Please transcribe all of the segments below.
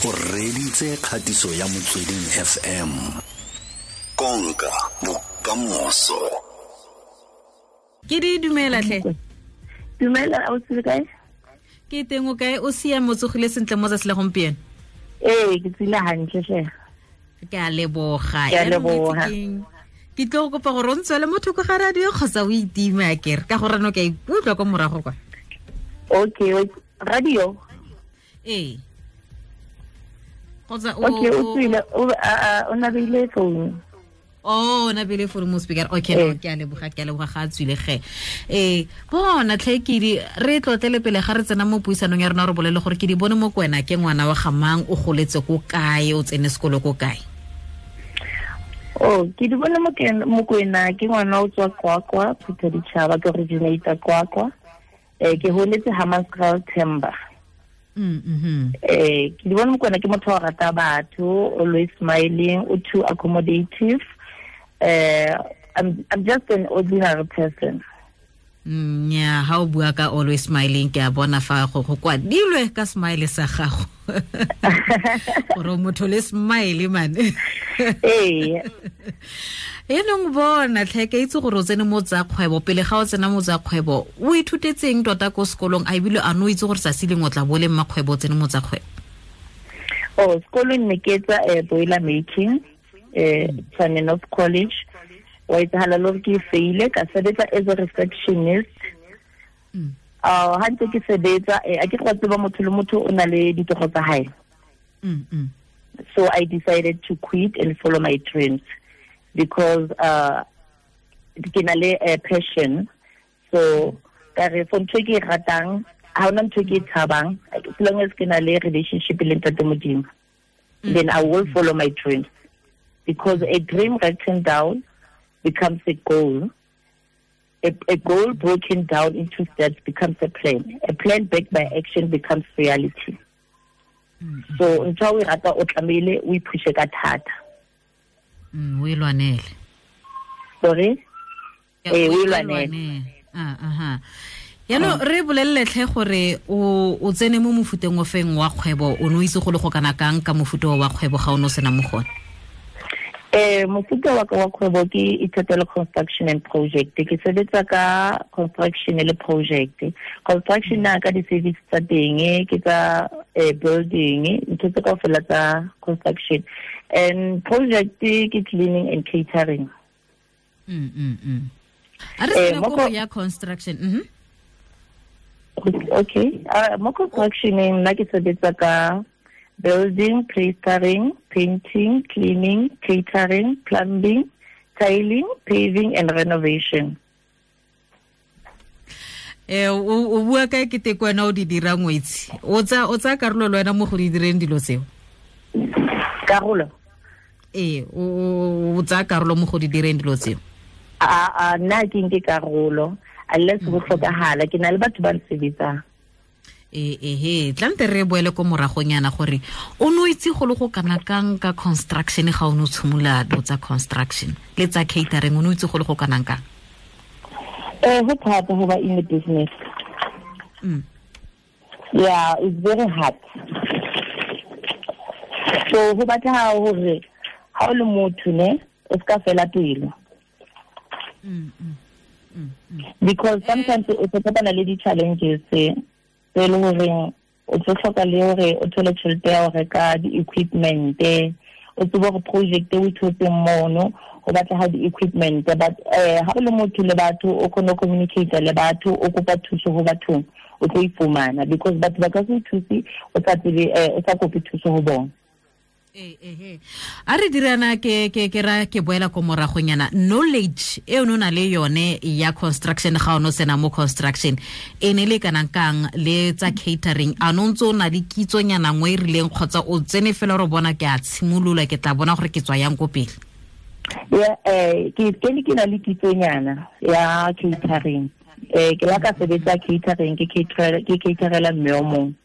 O reditse kgatiso ya Motsweding FM. Konka bokamoso. Ke di dumela tlhe. Dumela, o tsile kae? Ke teng, o kae? O siame, o tsogile sentle mo tsatsi la gompieno? Ee, ke tsile hantle tlhe. Ke a leboga. Ke a leboga. Ke tlo go kopa gore o ntswele mo thoko ga radio kgotsa o itime a kere, ka gore no ke a ikutlwa ko morago kwa. Okay, radio? Ee. Kgotsa o Okay, o tswile, o nabile phone. Oh, o nabile phone mo speaker. Okay, no, ke a leboga, ke a leboga, ga a tswile ge. Bona tlhe ke di re tlotlele pele ga re tsena mo puisanong ya rona, re bolele gore ke di bone mo kwena ke ngwana wa ga mang, o goletse ko kae, o tsene sekolo ko kae? Oh, ke di bone mo kwena ke ngwana o tswa Qwaqwa, Phuthaditjhaba, ke originator Qwaqwa. Ke holetse Hammanskraal Themba. Ke di bone Mokoena ke motho wa rata batho, always smiling, o too accommodative. I'm just an ordinary person. Nya, ha o bua ka always smiling, ke a bona fa go kwadilwe ka smile sa gago. Gore motho le smile man. Ee. Enong bona tlhe, ke itse gore o tsene mo tsa kgwebo, pele ga o tsena mo tsa kgwebo, o ithutetseng tota ko sekolong, a ebile a no itse gore tsatsi lengwe o tla bo le mmakgwebo o tsene mo tsa kgwebo? Oh, sekolong ne ke etsa boiler making, Tshwane North College. Wa etsahala le gore ke faile, ka sebetsa as a receptionist. Ha ntse ke sebetsa, a ke go tseba motho le motho o na le ditoro tsa hae. So I decided to quit and follow my dreams because ke na le a passion. So ka re for ntho e ke e ratang, ha hona ntho e ke e tshabang, as long as ke na le relationship le Ntate Modimo, then I will follow my dreams. Because a dream written down becomes a goal. A goal broken down into steps becomes a plan. A plan backed by action becomes reality. So ntho o e rata o tlamehile o iphushe ka thata. O e lwanele. Sorry? Ya, O e o e lwanele. lwanele. Yaanong re bolelele tlhe gore o tsene mo mofuteng o feng wa kgwebo, o ne o itse go le go kana kang ka mofuta wa kgwebo ga o ne o sena mo gone? Mofuta wa ka wa kgwebo ke Ithatelo Construction and Project. Ke sebetsa ka construction le project. Construction na ka di-service tsa teng, ke tsa building, ntho tse kaofela tsa construction. And project ke cleaning and catering. A re sena ko ya construction. Okay. Mo construction nna ke sebetsa ka building, plastering, painting, cleaning, catering, plumbing, tiling, paving and renovation. O bua kae ke teko wena o di dira ngwetsi? O tsa karolo le wena mo go di direng dilo tseo? Karolo? Ee, o tsa karolo mo go di direng dilo tseo? A, nna ke nke karolo, unless go tlhokagala, ke na le batho ba nsebetsang. Tlante re boele ko moragonyana gore o ne o itse go le go kana kang ka construction ga o ne o tshimola dilo tsa construction le tsa catering, o ne o itse go le go kana kang? Ho thata ho ba in the business. Yeah, it's very hard. So ho batla hore ha o le motho ne, o ska fela pelo. Because sometimes o tlo kopana le di-challenges tse e leng horeng o tlo hloka le hore o thole tjhelete ya ho reka di-equipment, o tsebe hore project e o thotseng mono ho batleha di-equipment, but ha o le motho le batho o kgone ho communicate le batho, o kopa thuso ho bathong, o tlo e fumana, because batho ba ka se o thuse o sa tsebe, o sa kope thuso ho bona. A re dirana ke ra ke boela ko moragonyana, knowledge e o na le yone ya construction ga o no sena mo construction e ne le kana kang le tsa catering, a no ntse o na le kitsonyana nngwe e rileng kgotsa o tsene fela re bona ke a tshimolola ke tla bona gore ke tswa yang ko pele? Yeah, ke kene ke na le kitsonyana ya catering. Ke la ka sebetsa catering, ke caterela mme o mongwe.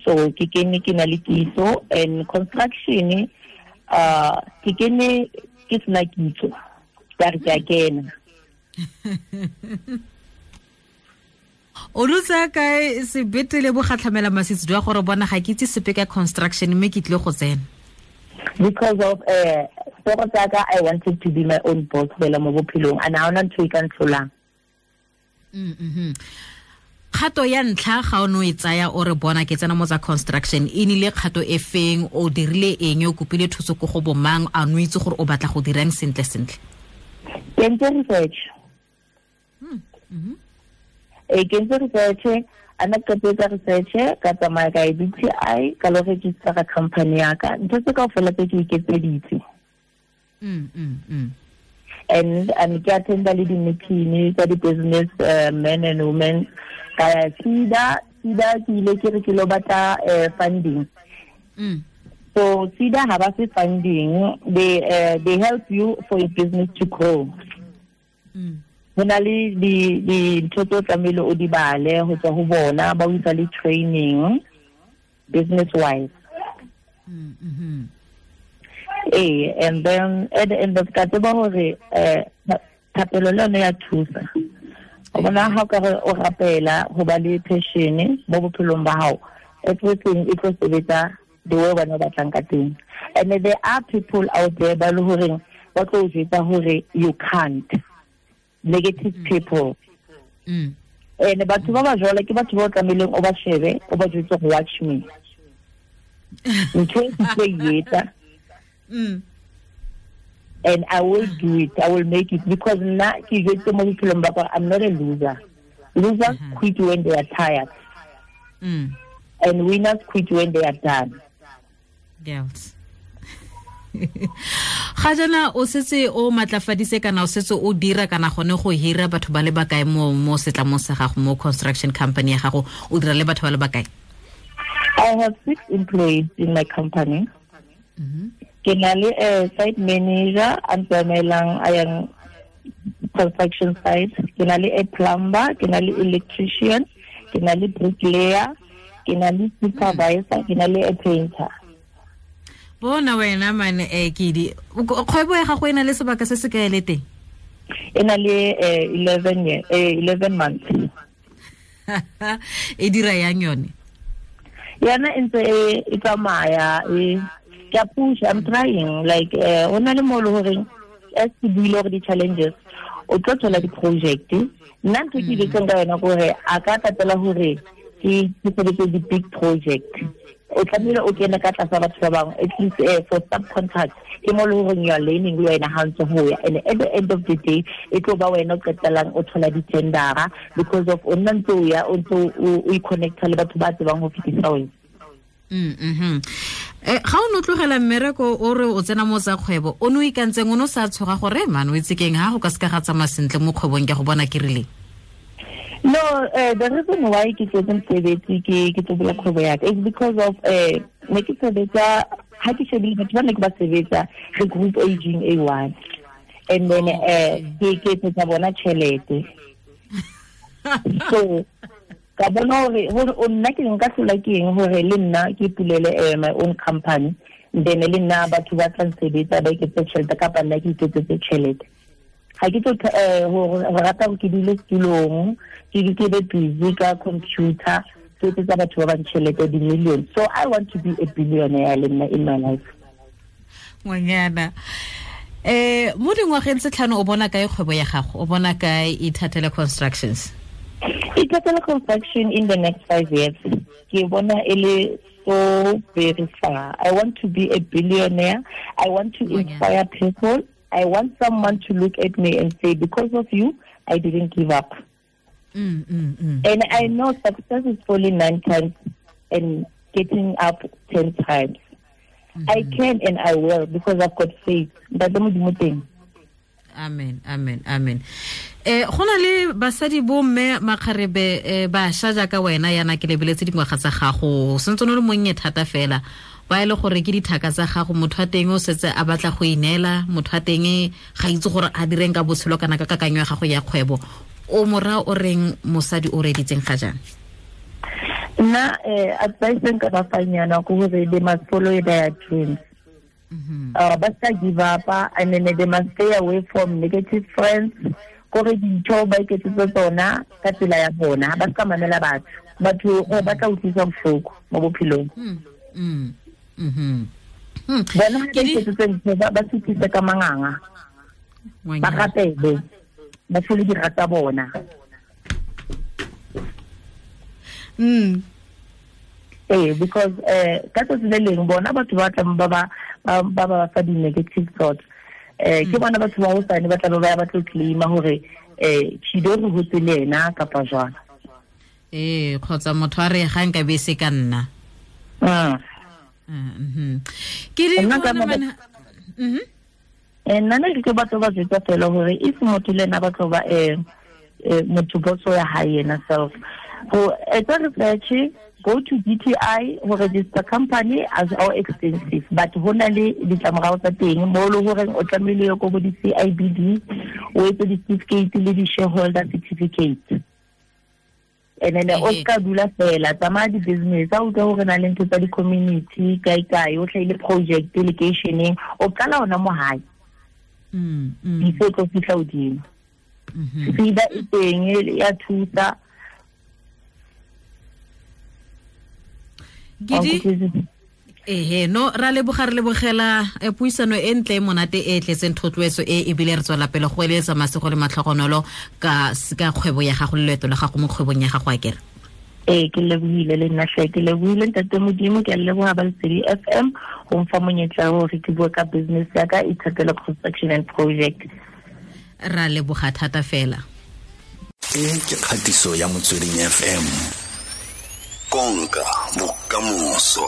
So ke kene ke na le kitso, and construction, ke kene ke sena kitso, ka re ke a kena. O lotsa kae sebete le bogatlhamela masitse jwa gore bona ga ke itse sepe ka construction mme ke tlile go tsena? Because of toro tsaka, I wanted to be my own boss fela mo bophelong, and ha hona ntho e ka ntlholang. Kgato ya ntlha ga o no e tsaya o re bona ke tsena mo tsa construction, e nile kgato e feng, o dirile eng, o kopile thuso ko go bomang, a no itse gore o batla go dirang sentle sentle? Ke entse research. Ke entse research, a na qetetse research, ka tsamaya ka e DTI, ka lo register ka company ya ka, ntho tse kaofela tse ke iketseditse. And ke attenda le di-meeting tsa di-business men and women. Ka ya SEDA, SEDA ke ile ke re ke lo batla funding. So SEDA ha ba fe funding, they help you for your business to grow. Ho na le dintho tse o tlamehile o di bale ho tswa ho bona, ba o isa le training business wise. And then at the end of ka tseba hore thapelo le yone ya thusa. O bona ha o ka re o rapela ho ba le passion mo bophelong ba hao, everything e tlo sebetsa the way wena o batlang ka teng. And there are people out there ba le horeng ba tlo o jwetsa hore you can't. Negative people. And batho ba ba jwalo ke batho ba o tlamehileng o ba shebe, o ba jwetse go watch me. Ntho e ke tlo e etsa. And I will do it. I will make it, because nna ke jwetse mo bophelong ba ka, I'm not a loser. Losers quit when they are tired. And winners quit when they are done. Girls. Ga jana o setse o matlafadise kana o setse o dira kana gone go hira batho ba le bakae mo setlamong sa gago, mo construction company ya gago, o dira le batho ba le bakae? I have 6 employees in my company. Ke na le site manager a ntsamaelang a yang construction site, ke na le a plumber, ke na le electrician, ke na le bricklayer, ke na le supervisor, ke na le a painter. Bona wena mane Kedi, kgwebo ya gago e na le sebaka se se kae le teng? E na le 11 year, 11 months. E dira yang yone? Yona e ntse e tsamaya, e ke a push, I'm trying, like o na le mo le horeng as ke buile gore di-challenges, o tlo thola di-project. Nna ntho ke iletseng ka yona kore a ka tatela hore ke sebetse di-big project. O tlamehile o kene ka tlasa batho ba bangwe, at least for subcontract, ke mo le horeng you are learning le wena ha ntse ho ya. And at the end of the day, e tlo ba wena o qetellang o thola di-tendera, because of o nna ntse o ya, o ntse o i-connecta le batho ba tsebang ho fetisa wena. Ga o no tlogela mmereko o re o tsena mo tsa kgwebo, o no ikantseng o no sa tshoga gore man o itse keng ha go ka seka ga tsamaya sentle mo kgwebong ke go bona ke rileng? No, the reason why ke tletse mosebetsi ke tlo bula kgwebo ya ka is because of ne ke sebetsa, ha ke shebile batho ba ne ke ba sebetsa re group aging A one, and then ke etsetsa bona tjhelete. So ka bona hore o nna ke nka hlola ke eng hore le nna ke pulele my own company, then le nna batho ba tla nsebetsa ba iketsetse tjhelete kapa nna ke iketsetse tjhelete. Ga ke tlo go rata gore ke dule setulong, ke be busy ka computer, ke etsetsa batho ba bang tjhelete di-million. So I want to be a billionaire le nna in my life. Ngwanyana, mo dingwageng tse 5 o bona kae kgwebo ya gago? O bona kae Ithatela Constructions? Ithatela Construction in the next 5 years, ke bona e le so very far. I want to be a billionaire. I want to inspire people. I want someone to look at me and say, because of you, I didn't give up. And I know success is falling 9 times and getting up 10 times. I can and I will, because I've got faith. Amen, amen, amen. Go na le basadi bo mme makgarebe bašwa jaaka wena yana ke lebeletse dingwaga tsa gago, sentse o le monnye thata fela, ba e le gore ke dithaka tsa gago, motho wa teng o setse a batla go ineela, motho wa teng ga itse gore a direng ka botshelo kana ka kakanyo ya gago ya kgwebo. O mora o reng mosadi o reditseng ga jaana? Nna advice nka ba fang yona ke hore they must follow their dreams. Ba sa give up, and then they must stay away from negative friends. Kore dintho ba iketsetse tsona ka tsela ya bona, ba ska mamela batho. Batho ba tla utlwisa bohloko mo bophelong. Bona ha ba iketsetse ntho ba suthise ka manganga. Ba rapele. Ba hlole dira tsa bona. Because ka tsatsi le leng bona batho ba tlang ba ba fa di-negative thoughts. Ke bona batho ba hosane ba tla ba ba tlo claima hore Chido re hotse le ena kapa jwang. Kgotsa motho a re ga nka be se ka nna. Ke di bona Nna ne ke batho ba jwetsa fela hore if motho le ena ba tlo ba motho boso ya hae yena self. Go etsa research, go to DTI go register company as our expensive, but ho na le ditlamorao tsa teng mo le horeng o tlamehile yo ko bo di CIBD o etse di-certificate le di-shareholder certificate. And then o ska dula fela tsamaya di-business a utlwa hore na le ntho tsa di-community kae kae o hlahile project lekeisheneng o qala ona mo hae before tlo fihla hodimo. SEDA e teng ya thusa. Gidi no ra leboga re lebogela puisano e ntle e monate e tletseng thotloetso e ebile re tswela pele go eletsa masego le matlhogonolo ka kgwebo ya gago le leeto la gago mo kgwebong ya gago akere. Ke lebohile le nna hle, ke lebohile ntate Modimo, ke a leboha ba Lesedi FM go mfa monyetla hore ke bue ka business ya ka Ithatelo Construction and Project. Ra leboga thata fela. E ke kgatiso ya Motsweding FM. Konka bokamoso.